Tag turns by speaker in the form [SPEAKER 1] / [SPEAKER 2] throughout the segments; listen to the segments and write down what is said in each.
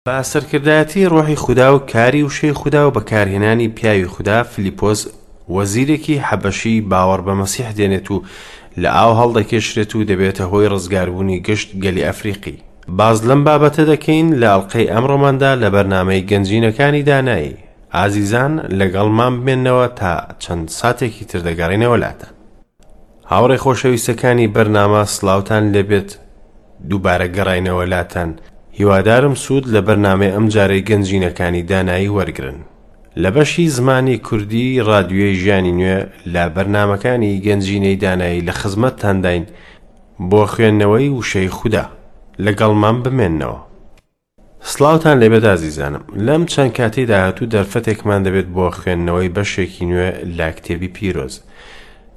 [SPEAKER 1] بە سەرکردایەتی ڕۆحی خودا و کاری وشەی خودا و بەکارهێنانی پیاوی خودا فلیپۆس وەزیرێکی حەبەشی باوەڕ بە مەسیح دێنێت و لە ئاو هەڵدەکێشرێت و دەبێتە هۆی ڕزگاربوونی گشت گەلی ئەفریقی. باس لەم بابەتە دەکەین لە ئەڵقەی ئەمڕۆماندا لە بەرنامەی گەنجینەکانی دانایی. ئازیزان لەگەڵمان بمێنەوە تا چەند ساتێکی تر دەگەڕێینەوە لاتان. هاوڕێ خۆشەویستەکانی بەرنامە سڵاوتان لێبێت دووبارە گەڕاینەوە لاتان هیوادارم سوود لە بەرنامەی ئەمجارەی گەنجینەکانی دانایی وەرگرن لە بەشی زمانی کوردی ڕادیۆی ژیانی نوێ لە بەرنامەکانی گەنجینەی دانایی لە خزمەتتانداین بۆ خوێندنەوەی وشەی خودا لەگەڵمان بمێنەوە. سڵاوتان لێبێت ئازیزانم لەم چەند کاتەی داهاتوو دەرفەتێکمان دەبێت بۆ خوێندنەوەی بەشێکی نوێ لە کتێبی پیرۆز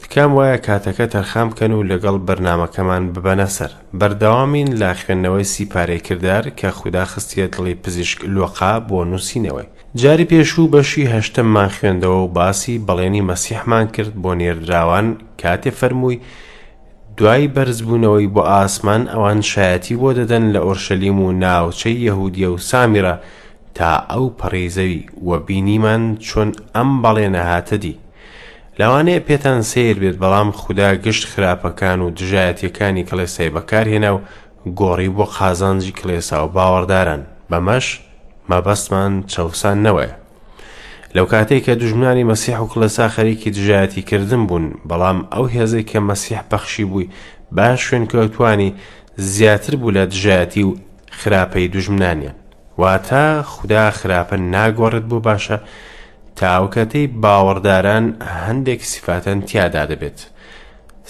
[SPEAKER 1] تکام وایە کاتەکە تەرخان بکەن و لەگەڵ بەرنامەکەمان ببەنە سەر بەردەوامین لە خوێندنەوەی سیپارەی کردار کە خودا خستیە دڵی پزیشک لۆقا بۆ نووسینەوەی جاری پێشوو بەشی هەشتەممان خوێندەوە و باسی بەڵێنی مەسیحمان کرد بۆ نێردراوان کاتێ فەرمووی دوای بەرزبوونەوەی بۆ ئاسمان ئەوان شایەتی بۆ دەدەن لە ئۆرشەلیم و ناوچەی یەهودیە و سامیرە تا ئەو پەڕی زەوی و بینیمان چۆن ئەم بەڵێنە هاتە دی. لەوانەیە پێتان سەیر بێت بەڵام خودا گشت خراپەکان و دژایەتیەکانی کڵێسای بەکارهێنا و گۆڕی بۆ قازانجی کڵێسا و باوەڕداران بەمەش مەبەستمان چەوساندنەوەیە. لەو کاتەی کە دوژمنانی مەسیح و کڵێسا خەریکی دژایەتی کردن بوون، بەڵام ئەو هێزەی کە مەسیح بەخشی بووی بە شوێنکەوتوانی زیاتر بوو لە دژایەتی و خراپەی دوژمنانیان. واتە خودا خراپە ناگۆڕێت بۆ باشە تا ئەو کاتەی باوەڕداران هەندێک سیفاتەن تیادا دەبێت.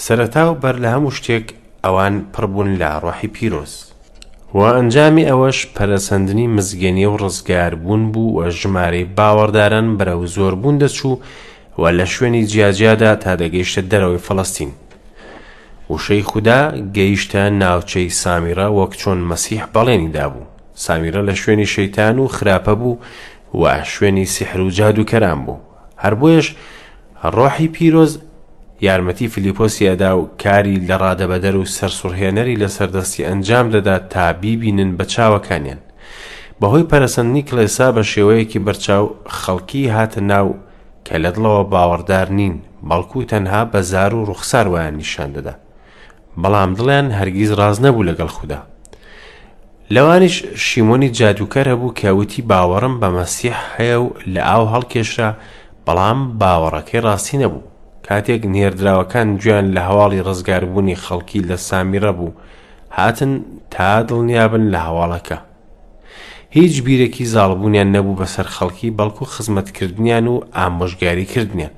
[SPEAKER 1] سەرەتا و بەر لە هەموو شتێک ئەوان پڕ بوون لە ڕۆحی پیرۆز. و ئەنجامی ئەوەش پەرەسەندنی مزگێنی و ڕزگاربوون بوو و ژمارەی باوەڕداران بەرەو زۆربوون دەچوو و لە شوێنی جیاجیادا تا دەگەیشتە دەرەوەی فەڵەستین. وشەی خودا گەیشتە ناوچەی سامیرە وەک چۆن مەسیح بەڵێنی دابوو. سامیرە لە شوێنی شەیتان و خراپە بوو و شوێنی سیحر و جادووکەران بوو. هەر بۆیەش ڕۆحی پیرۆز یارمەتی فیلیپۆسی ئەدا و کاری لە ڕادەبەدەر و سەرسوڕهێنەری لەسەر دەستی ئەنجام دەدا تا بیبینن بە چاوەکانیان. بەهۆی پەرەسەندنی کڵێسا بە شێوەیەکی بەرچاو خەڵکی هاتە ناو کە لە دڵەوە باوەڕدار نین، بەڵکو تەنها بە زار و ڕوخسار وایان نیشان دەدا. بەڵام دڵیان هەرگیز ڕاست نەبوو لەگەڵ خودا. لەوانیش شیمۆنی جادووکەر هەبوو کە وتی باوەڕم بە مەسیح هەیە و لە ئاو هەڵکێشرا، بەڵام باوەڕەکەی ڕاستی نەبوو. کاتێک نێردراوەکان گوێیان لە هەواڵی ڕزگاربوونی خەڵکی لە سامیرە بوو، هاتن تا دڵنیابن لە هەواڵەکە. هیچ بیرێکی زاڵبوونیان نەبوو بەسەر خەڵکی بەڵکو خزمەتکردنیان و ئامۆژگاریکردنیان.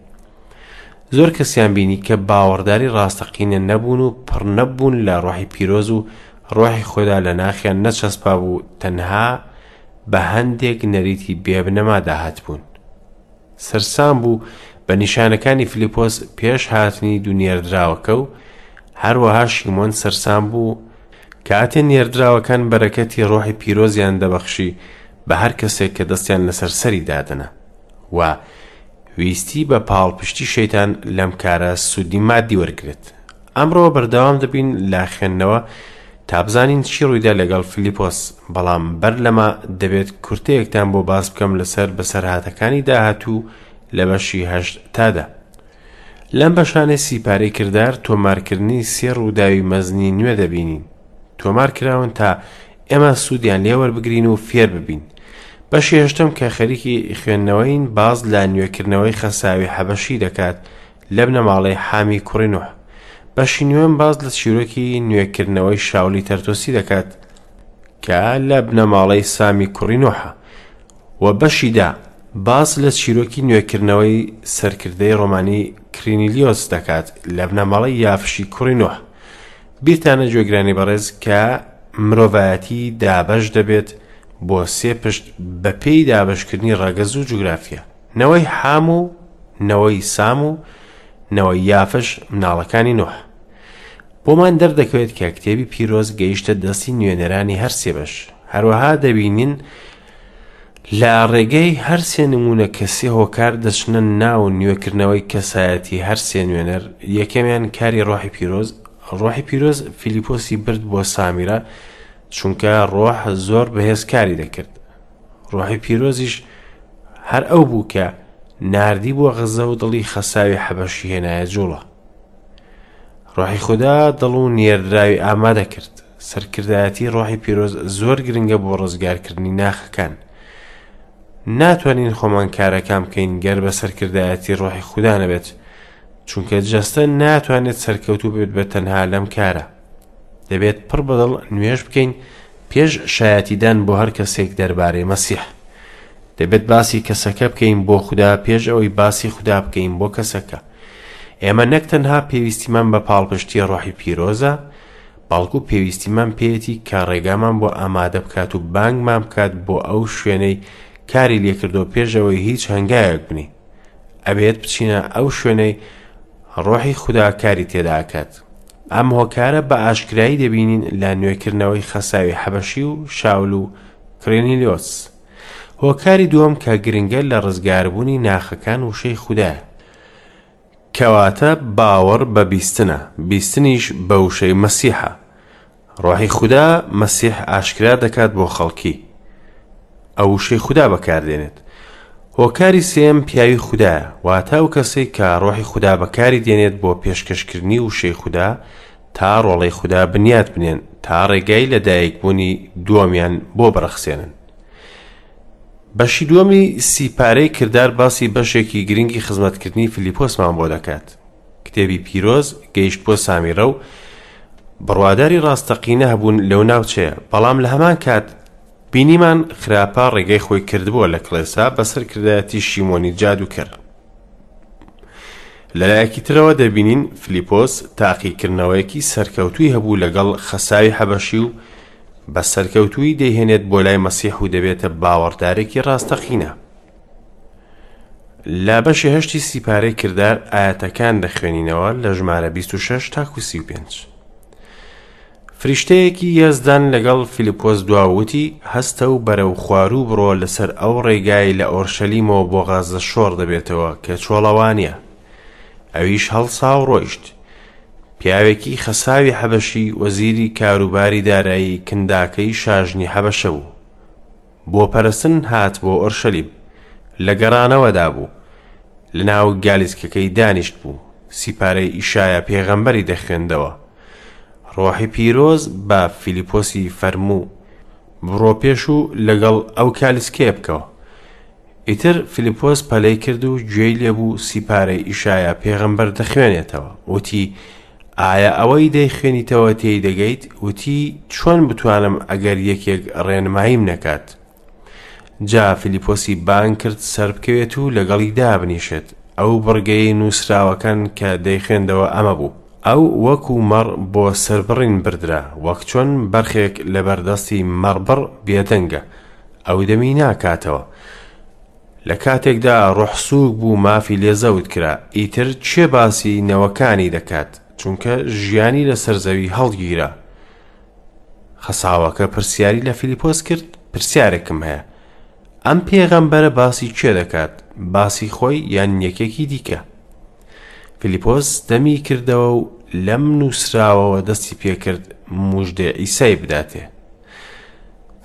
[SPEAKER 1] زۆر کەسیان بینی کە باوەڕداری ڕاستەقینە نەبوون و پڕ نەبوون لە ڕۆحی پیرۆز و ڕۆحی خۆدا لە ناخیان نەچەسپا بوو تەنها بە هەندێک نەریتی بێبنەما داهاتبوون. سەرسام بوو بە نیشانەکانی فلیپۆس پێش هاتنی دوو نێردراوەکە و هەروەها شیمۆن سەرسام بوو کاتێ نێردراوەکان بەرەکەتی ڕۆحی پیرۆزیان دەبەخشی بە هەر کەسێک کە دەستیان لەسەر سەری دادەنا و ویستی بە پاڵپشتی شەیتان لەم کارە سوودی مادی وەرگرێت. ئەمڕۆ بەردەوام دەبین لە خوێندنەوە تا بزانین چی ڕوویدا لەگەڵ فلیپۆس، بەڵام بەر لەمە دەبێت کورتەیەکتان بۆ باس بکەم لەسەر بەسەرهاتەکانی داهاتوو لە بەشی هەشت تا دە. لەم بەشانەی سیپارەی کردار تۆمارکردنی سێ ڕووداوی مەزنی نوێ دەبینین. تۆمار کراون تا ئێمە سوودیان لێ وەربگرین و فێر ببین. بەشی هەشتەم کە خەریکی خوێندنەوەین باس لە نوێکردنەوەی خەساوی حەبەشی دەکات لە بنەماڵەی حامی کوڕی نوح. بەشی نوێم باس لە چیرۆکی نوێکردنەوەی شاولی تەرتۆسی دەکات کە لە بنەماڵەی سامی کوڕی نوحە و بەشی دا باس لە چیرۆکی نوێکردنەوەی سەرکردەی ڕۆمانی کرینیلیۆس دەکات لە بنەماڵەی یافشی کوڕی نوح. بیرتانە گوێگرانی بەڕێز کە مرۆڤایەتی دابەش دەبێت بۆ سێ پشت بەپێی دابەشکردنی ڕەگەز و جوگرافیا نەوەی حام و نەوەی سام و نەوەی یافش مناڵەکانی نوح بۆمان دەردەکەوێت کە کتێبی پیرۆز گەیشتە دەستی نوێنەرانی هەر سێ بەش هەروەها دەبینین لە ڕێگەی هەر سێ نموونە کە سێ هۆکار دەچنە ناو نوێکردنەوەی کەسایەتی هەر سێ نوێنەر، یەکەمیان کاری ڕۆحی پیرۆز، ڕۆحی پیرۆز فیلیپۆسی برد بۆ سامیرە، چونکە ڕۆح زۆر بەهێز کاری دەکرد. ڕۆحی پیرۆزیش هەر ئەو بوو کە ناردی بۆ غەزە و دڵی خەساوی حەبەشی هێنایە جوڵە. ڕۆحی خودا دڵ و نێردراوی ئامادە کرد. سەرکردایەتی ڕۆحی پیرۆز زۆر گرنگە بۆ ڕزگارکردنی ناخەکان. ناتوانین خۆمان کارەکان بکەین گەر بە سەرکردایەتی ڕۆحی خودا نەبێت، چونکە جەستە ناتوانێت سەرکەوتوو بێت بە تەنها لەم کارە. دەبێت پڕ بەدڵ نوێژ بکەین پێش شایەتیدان بۆ هەر کەسێک دەربارەی مەسیح. دەبێت باسی کەسەکە بکەین بۆ خودا پێش ئەوەی باسی خودا بکەین بۆ کەسەکە. ئێمە نەک تەنها پێویستیمان بە پاڵپشتی ڕۆحی پیرۆزە، بەڵکو پێویستیمان پێیەتی کە ڕێگامان بۆ ئامادە بکات و بانگمان بکات بۆ ئەو شوێنەی کاری لێکردۆ پێش ئەوەی هیچ هەنگاوێک بنێین. ئەبێت بچینە ئەو شوێنەی ڕۆحی خودا کاری تێدا ئەکات. ئەم هۆکارە بە ئاشکرایی دەبینین لە نوێکردنەوەی خەساوی حەبەشی و شاول و کرێنیلیۆس. هۆکاری دووەم کە گرنگە لە ڕزگاربوونی ناخەکان وشەی خودایە. کەواتە باوەڕ بە بیستنە، بیستنیش بە وشەی مەسیحە. ڕۆحی خودا مەسیح ئاشکرا دەکات بۆ خەڵکی. ئەو وشەی خودا بەکاردێنێت. هۆکاری سێیەم پیاوی خودایە، واتە ئەو کەسەی کە ڕۆحی خودا بەکاری دێنێت بۆ پێشکەشکردنی وشەی خودا تا ڕۆڵەی خودا بنیات بنێن تا ڕێگای لەدایکبوونی دووەمیان بۆ بڕەخسێنن. بەشی دووەمی سیپارەی کردار باسی بەشێکی گرنگی خزمەتکردنی فیلیپۆسمان بۆ دەکات. کتێبی پیرۆز گەیشت بۆ سامیرە و بڕواداری ڕاستەقینە هەبوون لەو ناوچەیە، بەڵام لە هەمان کات بینیمان خراپە ڕێگەی خۆی کردبووە لە کڵێسا بە سەرکردایەتی شیمۆنی جادووکەر. لەلایەکی ترەوە دەبینین فلیپۆس تاقیکردنەوەیەکی سەرکەوتووی هەبوو لەگەڵ خەساوی حەبەشی و بە سەرکەوتوویی دەیهێنێت بۆ لای مەسیح و دەبێتە باوەڕدارێکی ڕاستەقینە. لە بەشی هەشتی سیپارەی کردار ئایەتەکان دەخوێنینەوە لە ژمارە 26 تاکو 35. فریشتەیەکی یەزدان لەگەڵ فیلیپۆس دوا و وتی، هەستە و بەرەو خواروو بڕۆ لەسەر ئەو ڕێگای لە ئۆرشەلیمەوە بۆ غەززە شۆڕ دەبێتەوە کە چۆڵەوانییە. ئەویش هەڵسا و ڕۆیشت. پیاوێکی خەساوی حەبەشی وەزیری کاروباری دارایی کنداکەی شاژنی حەبەشە بوو. بۆ پەرستن هات بۆ ئۆرشەلیم. لە گەڕانەوەدا بوو. لەناو گالیسکەکەی دانیشت بوو. سیپارەی ئیشایا پێغەمبەری دەخوێندەوە. ڕۆحی پیرۆز بە فیلیپۆسی فەرموو، بڕۆ پێش و لەگەڵ ئەو کالیسکەیە بکەوە. ئیتر فیلیپۆس پەلەی کرد و گوێی لێبوو سیپارەی ئیشایا پێغەمبەر دەخوێنێتەوە. وتی، ئایا ئەوەی دەیخوێنیتەوە تێی دەگەیت؟ وتی، چۆن بتوانم ئەگەر یەکێک ڕێنماییم نەکات؟ جا فیلیپۆسی بانگ کرد سەربکەوێت و لەگەڵی دابنیشێت. ئەو بڕگەیەی نووسراوەکان کە دەیخوێندەوە ئەمە بوو، ئەو وەکو مەڕ بۆ سەربڕین بردرا، وەک چۆن بەرخێک لەبەردەستی مەڕبڕ بێدەنگە، ئەو دەمی ناکاتەوە. لە کاتێکدا ڕۆح سووک بوو مافی لێ زەوت کرا، ئیتر کێ باسی نەوەکانی دەکات، چونکە ژیانی لەسەر زەوی هەڵگیرا. خەساوەکە پرسیاری لە فیلیپۆس کرد، پرسیارێکم هەیە، ئەم پێغەمبەرە باسی کێ دەکات، باسی خۆی یان یەکێکی دیکە؟ فیلیپۆس دەمی کردەوە و لەم نووسراوەوە دەستی پێکرد موژدەی عیسای بداتێ.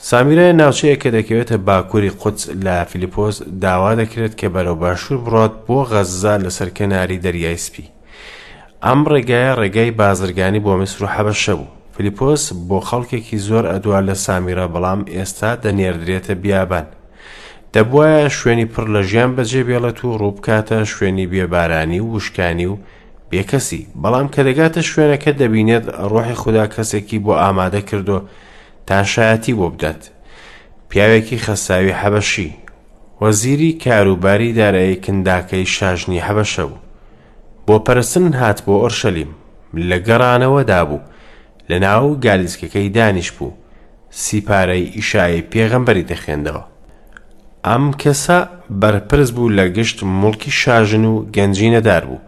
[SPEAKER 1] سامیرە ناوچەیە کە دەکەوێتە باکووری قودس لە فیلیپۆس داوا دەکرێت کە بەرەو باشوور بڕات بۆ غەززە لەسەر کەناری دەریای سپی. ئەم ڕێگایە ڕێگای بازرگانی بۆ میسر و حەبەشە بوو. فیلیپۆس بۆ خەڵکێکی زۆر ئەدوا لە سامیرە بەڵام ئێستا دەنێردرێتە بیابان. دەبوایە شوێنی پڕ لە ژیان بەجێ بێڵێت و ڕووبکاتە شوێنی بێبارانی و وشکانی و بێکەسی، بەڵام کە دەگاتە شوێنەکە دەبینێت ڕۆحی خودا کەسێکی بۆ ئامادە کردووە تا شایەتی بۆ بدات. پیاوێکی خەساوی حەبەشی، وەزیری کاروباری دارایی کنداکەی شاژنی حەبەشە بوو. بۆ پەرستن هات بۆ ئۆرشەلیم. لە گەڕانەوەدا بوو. لە ناو گالیسکەکەی دانیشبوو. سیپارەی ئیشایای پێغەمبەری دەخوێندەوە. ئەم کەسە بەرپرس بوو لە گشت موڵکی شاژن و گەنجینەدار بوو.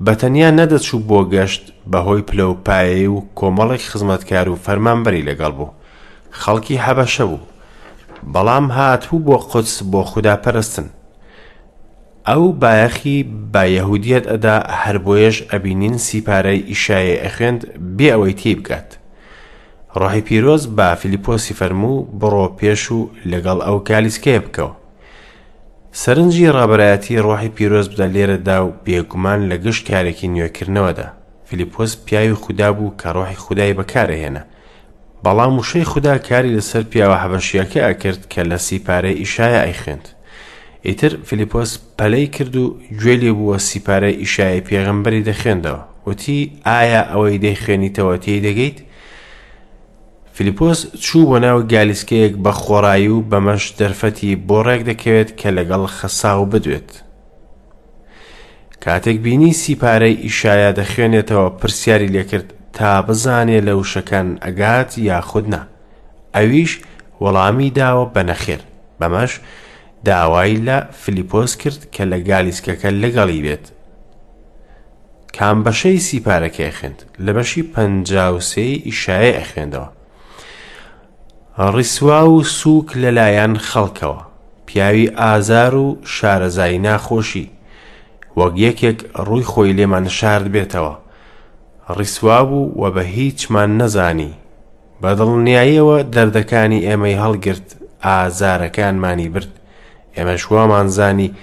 [SPEAKER 1] بە تەنیا نەدەچوو بۆ گەشت بەهۆی پلە و پایەی و کۆمەڵێک خزمەتکار و فەرمانبەری لەگەڵ بوو. خەڵکی حەبەشە بوو. بەڵام هاتبوو بۆ قودس بۆ خودا پەرستن. ئەو بایەخی بە یەهودیەت ئەدا هەر بۆیەش ئەبینین سیپارەی ئیشایای ئەخوێند بێ ئەوەی تێی بگات. ڕۆحی پیرۆز بە فیلیپۆسی فەرموو، بڕۆ پێش و لەگەڵ ئەو گالیسکەیە بکەوە. سەرنجی ڕابەرایەتی ڕۆحی پیرۆز بدە لێرەدا و بێگومان لە گشت کارێکی نوێکردنەوەدا. فیلیپۆس پیاوی خودا بوو کە ڕۆحی خودای بەکارئەهێنا. بەڵام وشەی خودا کاری لەسەر پیاوە حەبەشییەکە ئەکرد کە لە سیپارەی ئیشایا ئەیخوێند. ئیتر فیلیپۆس پەلەی کرد و گوێی لێ بوو و سیپارەی ئیشایای پێغەمبەری دەخوێندەوە. وتی، ئایا ئەوەی دەیخوێنیتەوە تێی دەگەیت؟ فیلیپۆس چوو بۆ ناو گالیسکەیەک بە خۆڕایی و بەمەش دەرفەتی بۆ ڕێک دەکەوێت کە لەگەڵ خەساو بدوێت. کاتێک بینی سیپارەی ئیشایا دەخوێنێتەوە پرسیاری لێکرد تا بزانێ لە وشەکان ئەگات یاخود نا. ئەویش وەڵامی داوە بە نەخێر. بەمەش داوای لە فیلیپۆس کرد کە لە گالیسکەکە لەگەڵی بێت. کام بەشەی سیپارەکەی ئەخوێند؟ لە بەشی 53 ئیشایای ئەخوێندەوە. ڕیسوا و سووک لەلایەن خەڵکەوە، پیاوی ئازار و شارەزای ناخۆشی، وەک یەکێک ڕووی خۆی لێمان شاردبێتەوە. ڕیسوا بوو و بە هیچمان نەزانی. بە دڵنیاییەوە دەردەکانی ئێمەی هەڵگرت، ئازارەکانمانی برد. ئێمەش وامان زانی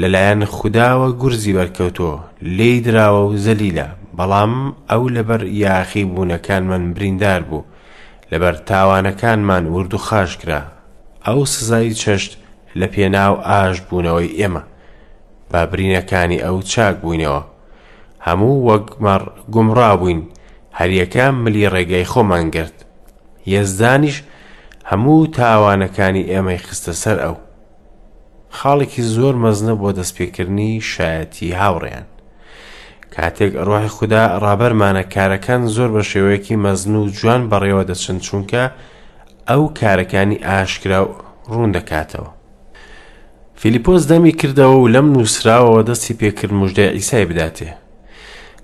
[SPEAKER 1] لەلایەن خوداوە گورزی بەرکەوتووە، لێی دراوە و زەلیلە، بەڵام ئەو لەبەر یاخیبوونەکانمان بریندار بوو، لەبەر تاوانەکانمان وردوخاش کرا. ئەو سزای چەشت لە پێناو ئاشتبوونەوەی ئێمە. بە برینەکانی ئەو چاک بووینەوە. هەموو وەک مەڕ گومڕا بووین، هەریەکە ملی ڕێگای خۆمان گرت. یەزدانیش هەموو تاوانەکانی ئێمەی خستە سەر ئەو. خاڵێکی زۆر مەزنە بۆ دەستپێکردنی شایەتی هاوڕێیان. کاتێک ڕۆحی خودا ڕابەرمانە کارەکان زۆر بە شێوەیەکی مەزن و جوان بەڕێوە دەچن چونکە ئەو کارەکانی ئاشکرا و ڕوون دەکاتەوە. فیلیپۆس دەمی کردەوە و لەم نووسراوەوە دەستی پێکرد مژدەی عیسای بداتێ.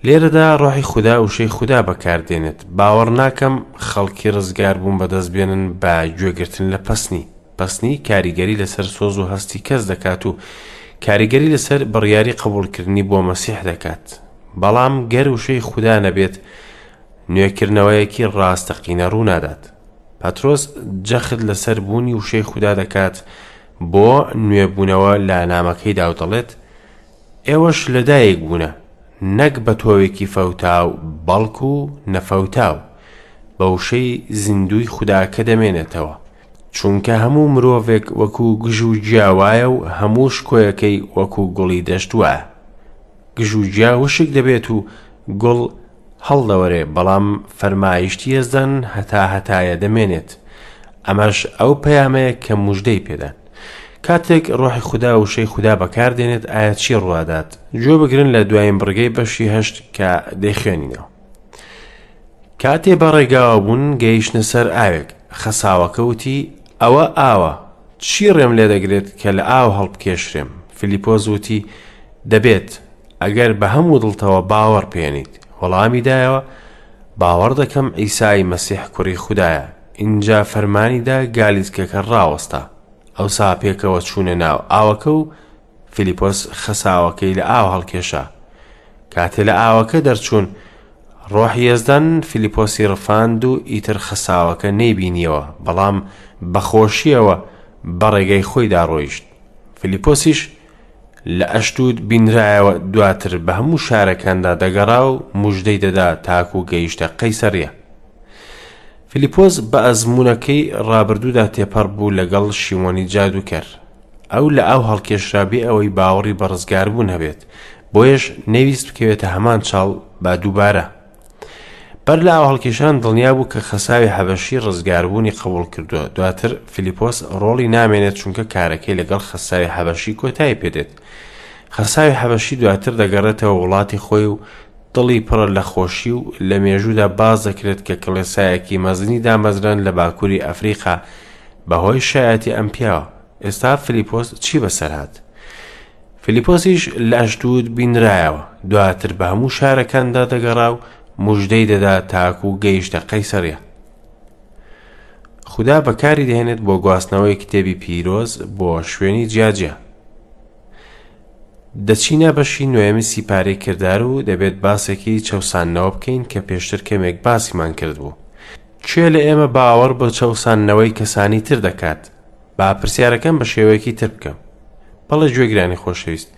[SPEAKER 1] لێرەدا ڕۆحی خودا وشەی خودا بەکاردێنێت. باوەڕ ناکەم خەڵکی ڕزگاربوون بەدەست بێنن بە گوێگرتن لە پەسنی. پەسنی کاریگەری لەسەر سۆز و هەستی کەس دەکات و کاریگەری لەسەر بڕیاری قبوڵکردنی بۆ مەسیح دەکات. بەڵام گەر وشەی خودا نەبێت، نوێکردنەوەیەکی ڕاستەقینە ڕوونادات. پەترۆس جەخت لەسەر بوونی وشەی خودا دەکات بۆ نوێبوونەوە لە نامەکەیدا و دەڵێت، ئێوەش لەدایک بوونە، نەک بە تۆوێکی فەوتاو، بەڵکو نەفەوتاو، بە وشەی زیندووی خودا کە دەمێنێتەوە. چونکە هەموو مرۆڤێک وەکو گژ و گیا وایە و هەموو شکۆیەکەی وەکو گوڵی دەشت وایە. گژ و گیا وشک دەبێت و گوڵ هەڵدەوەرێ، بەڵام فەرمایشتی یەزدان هەتاهەتایە دەمێنێت. ئەمەش ئەو پەیامەیە کە موژدەی پێدان. کاتێک ڕۆحی خودا وشەی خودا بەکاردێنێت ئایا چی ڕوادات؟ گوێ بگرن لە دوایین بڕگەی بەشی هەشت کە دەیخوێنینەوە. کاتێ بە ڕێگاوە بوون گەیشتنە سەر ئاوێک، خەساوەکە وتی، ئەوە ئاوە، چی ڕێم لێ دەگرێت کە لە ئاو هەڵبکێشرێم؟ فیلیپۆس وتی، دەبێت، ئەگەر بە هەموو دڵتەوە باوەڕ بهێنیت. وەڵامی دایەوە، باوەڕ دەکەم عیسای مەسیح کوڕی خودایە. ئینجا فەرمانی دا گالیسکەکە ڕاوەستا. ئەوسا پێکەوە چوونە ناو ئاوەکە و فیلیپۆس خەساوەکەی لە ئاو هەڵکێشا. کاتێ لە ئاوەکە دەرچوون، ڕۆحی یەزدان فیلیپۆسی ڕفاند و ئیتر خەساوەکە نەیبینیەوە، بەڵام بە خۆشییەوە بە ڕێگەی خۆیدا ڕۆیشت. فیلیپۆسیش لە ئەشدود بینرایەوە، دواتر بە هەموو شارەکاندا دەگەڕا و موژدەی دەدا تاکو گەیشتە قەیسەرییە. فیلیپۆس بە ئەزموونەکەی ڕابردوودا تێپەڕ بوو لەگەڵ شیمۆنی جادووکەر. ئەو لە ئاو هەڵکێشرا بێ ئەوەی باوەڕی بە ڕزگاربوون هەبێت، بۆیەش نەیویست بکەوێتە هەمان چاڵ بە دووبارە. بەر لە ئاوهەڵکێشان دڵنیا بوو کە خەساوی حەبەشی ڕزگاربوونی قبوڵ کردووە. دواتر فیلیپۆس ڕۆڵی نامێنێت چونکە کارەکەی لەگەڵ خەساوی حەبەشی کۆتایی پێدێت. خەساوی حەبەشی دواتر دەگەڕێتەوە وڵاتی خۆی و دڵی پڕە لە خۆشی و لە مێژوودا باس دەکرێت کە کڵێسایەکی مەزنی دامەزراند لە باکووری ئەفریقا بەهۆی شایەتی ئەم پیاوە. ئێستا فیلیپۆس چی بەسەر هات؟ فیلیپۆسیش لە ئەشدود بینرایەوە، دواتر بە هەموو شارەکاندا دەگەڕا و موژدەی دەدا تاکو گەیشتە قەیسەریە. خودا بەکاری دەهێنێت بۆ گواستنەوەی کتێبی پیرۆز بۆ شوێنی جیاجیا. دەچینە بەشی نۆیەمی سیپارەی کردار و دەبێت باسێکی چەوساندنەوە بکەین کە پێشتر کەمێک باسیمان کردبوو. کێ لە ئێمە باوەڕ بە چەوساندنەوەی کەسانی تر دەکات؟ با پرسیارەکەم بە شێوەیەکی تر بکەم. بەڵێ گوێگرانی خۆشەویست،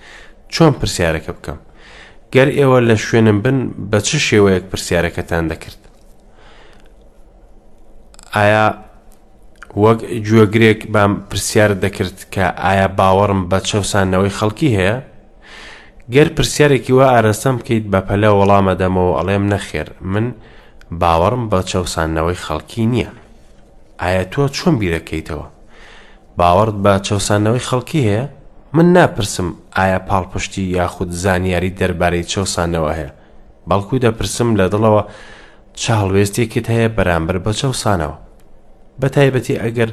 [SPEAKER 1] چۆن پرسیارەکە بکەم؟ گەر ئێوە لە شوێنم بن بە چ شێوەیەک پرسیارەکەتان دەکرد؟ ئایا وەک گوێگرێک بام پرسیارت دەکرد کە ئایا باوەڕم بە چەوساندنەوەی خەڵکی هەیە؟ گەر پرسیارێکی وا ئاراستەم بکەیت بە پەلە وەڵام ئەدەمەوە ئەڵێم نەخێر من باوەڕم بە چەوساندنەوەی خەڵکی نییە. ئایا تۆ چۆن بیرەکەیتەوە؟ باوەڕت بە چەوساندنەوەی خەڵکی هەیە؟ من ناپرسم ئایا پاڵپشتی یاخود زانیاری دەربارەی چەوساندنەوە هەیە، بەڵکو دەپرسم لە دڵەوە چ هەڵوێستێکت هەیە بەرامبەر بە چەوسانەوە؟ بە تایبەتی ئەگەر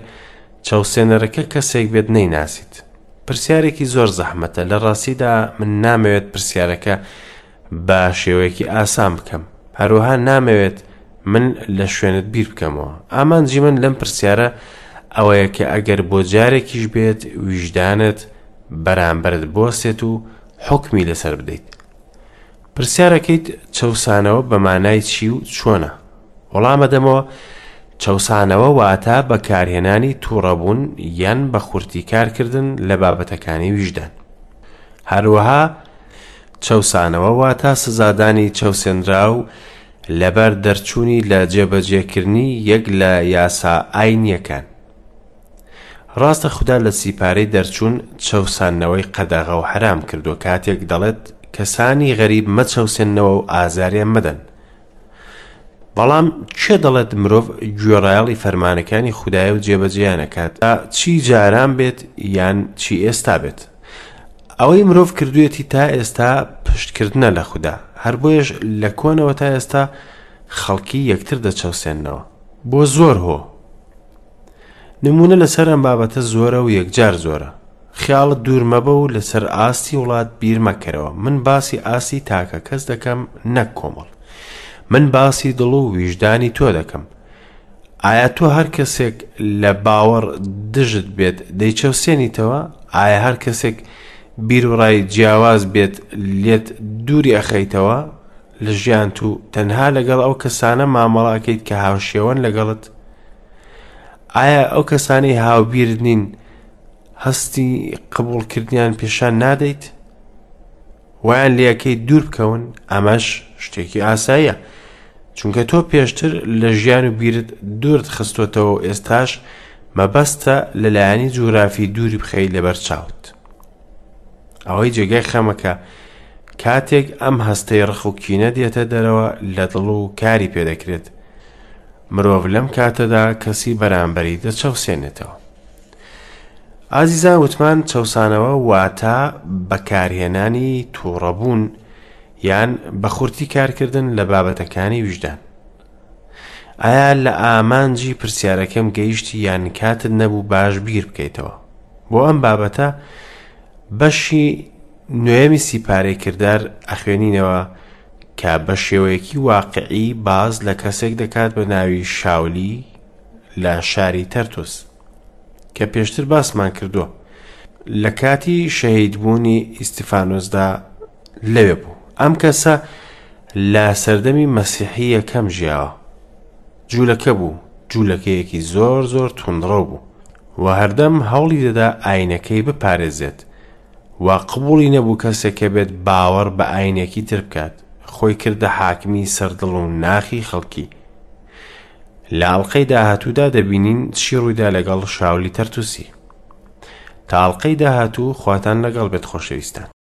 [SPEAKER 1] چەوسێنەرەکە کەسێک بێت نەیناسیت. پرسیارێکی زۆر زەحمەتە، لە ڕاستیدا من نامەوێت پرسیارەکە بە شێوەیەکی ئاسان بکەم، هەروەها نامەوێت من لە شوێنت بیر بکەمەوە. ئامانجی من لەم پرسیارە ئەوەیە کە ئەگەر بۆ جارێکیش بێت ویژدانت بەرامبەرت بوەستێت و حوکمی لەسەر بدەیت. پرسیارەکەیت چەوسانەوە بە مانای چی و چۆنە؟ وەڵامەدەمەوە، چەوسانەوە واتە بەکارهێنانی توڕەبوون یان بە خورتی کارکردن لە بابەتەکانی ویژدان. هەروەها چەوسانەوە واتە سزادانی چەوسێنراو لەبەر دەرچوونی لە جێبەجێکردنی یەک لە یاسا ئاینییەکان. ڕاستە خودا لە سیپارەی دەرچوون چەوساندنەوەی قەدەغە و حەرام کردووە کاتێک دەڵێت کەسانی غەریب مەچەوسێننەوە و ئازاریان مەدەن، بەڵام کێ دەڵێت مرۆڤ گوێڕایەڵی فەرمانەکانی خودایە و جێبەجێیان ئەکات چی جاران بێت یان چی ئێستا بێت؟ ئەوەی مرۆڤ کردوێتی تا ئێستا پشتکردنە لە خودا، هەر بۆیەش لە کۆنەوە تا ئێستا خەڵکی یەکتر دەچەوسێننەوە بۆ زۆر هۆ. نموونە لەسەر ئەم بابەتە زۆرە و یەکجار زۆرە. خیاڵت دوور مەبە و لەسەر ئاستی وڵات بیر مەکەرەوە، من باسی ئاستی تاکە کەس دەکەم نەک کۆمەڵ. من باسی دڵ و ویژدانی تۆ دەکەم. ئایا تۆ هەر کەسێک لە باوەڕ دژت بێت دەیچەوسێنیتەوە؟ ئایا هەر کەسێک بیروڕای جیاواز بێت لێت دووری ئەخەیتەوە لە ژیانت و تەنها لەگەڵ ئەو کەسانە مامەڵە ئەکەیت کە هاوشێوەن لەگەڵت؟ ئایا ئەو کەسانەی هاوبیرت نین هەستی قبوڵکردنیان پێشان نادەیت؟ وایان لەکەی دوور بکەون؟ ئەمەش شتێکی ئاساییە چونکە تۆ پێشتر لە ژیان و بیرت دوورت خستۆتەوە و ئێستاش مەبەستە لەلایەنی جوگرافی دووری بخەی لەبەر چاوت. ئەوەی جێگای خەمەکە کاتێک ئەم هەستەی ڕق و کینە دێتە دەرەوە لە دڵ و کاری پێدەکرێت، مرۆڤ لەم کاتەدا کەسی بەرامبەری دەچەوسێنێتەوە. ئازیزان وتمان چەوسانەوە واتە بەکارهێنانی تووڕەبوون یان بە خورتی کارکردن لە بابەتەکانی ویژدان. ئایا لە ئامانجی پرسیارەکەم گەیشتی یان کاتت نەبوو باش بیر بکەیتەوە؟ بۆ ئەم بابەتە بەشی نوێمی سیپارەی کردار ئەخوێنینەوە کە بە شێوەیەکی واقعی باس لە کەسێک دەکات بە ناوی شاولی لە شاری تەرتوس کە پێشتر باسمان کردووە لە کاتی شەهیدبوونی ئیستیفانۆسدا لەوێ بوو. ئەم کەسە لە سەردەمی مەسیحی یەکەم ژیاوە. جوولەکە بوو، جوولەکەیەکی زۆر زۆر توندڕەو بوو و هەردەم هەوڵی دەدا ئاینەکەی بپارێزێت و قبوڵی نەبوو کەسێک هەبێت باوەڕ بە ئاینێکی تر بکات، خۆی کردە حاکمی سەر دڵ و ناخی خەڵکی. لە ئەڵقەی داهاتوودا دەبینین چی ڕوویدا لەگەڵ شاولی تەرتوسی. تا ئەڵقەی داهاتوو خواتان لەگەڵ بێت خۆشەویستان.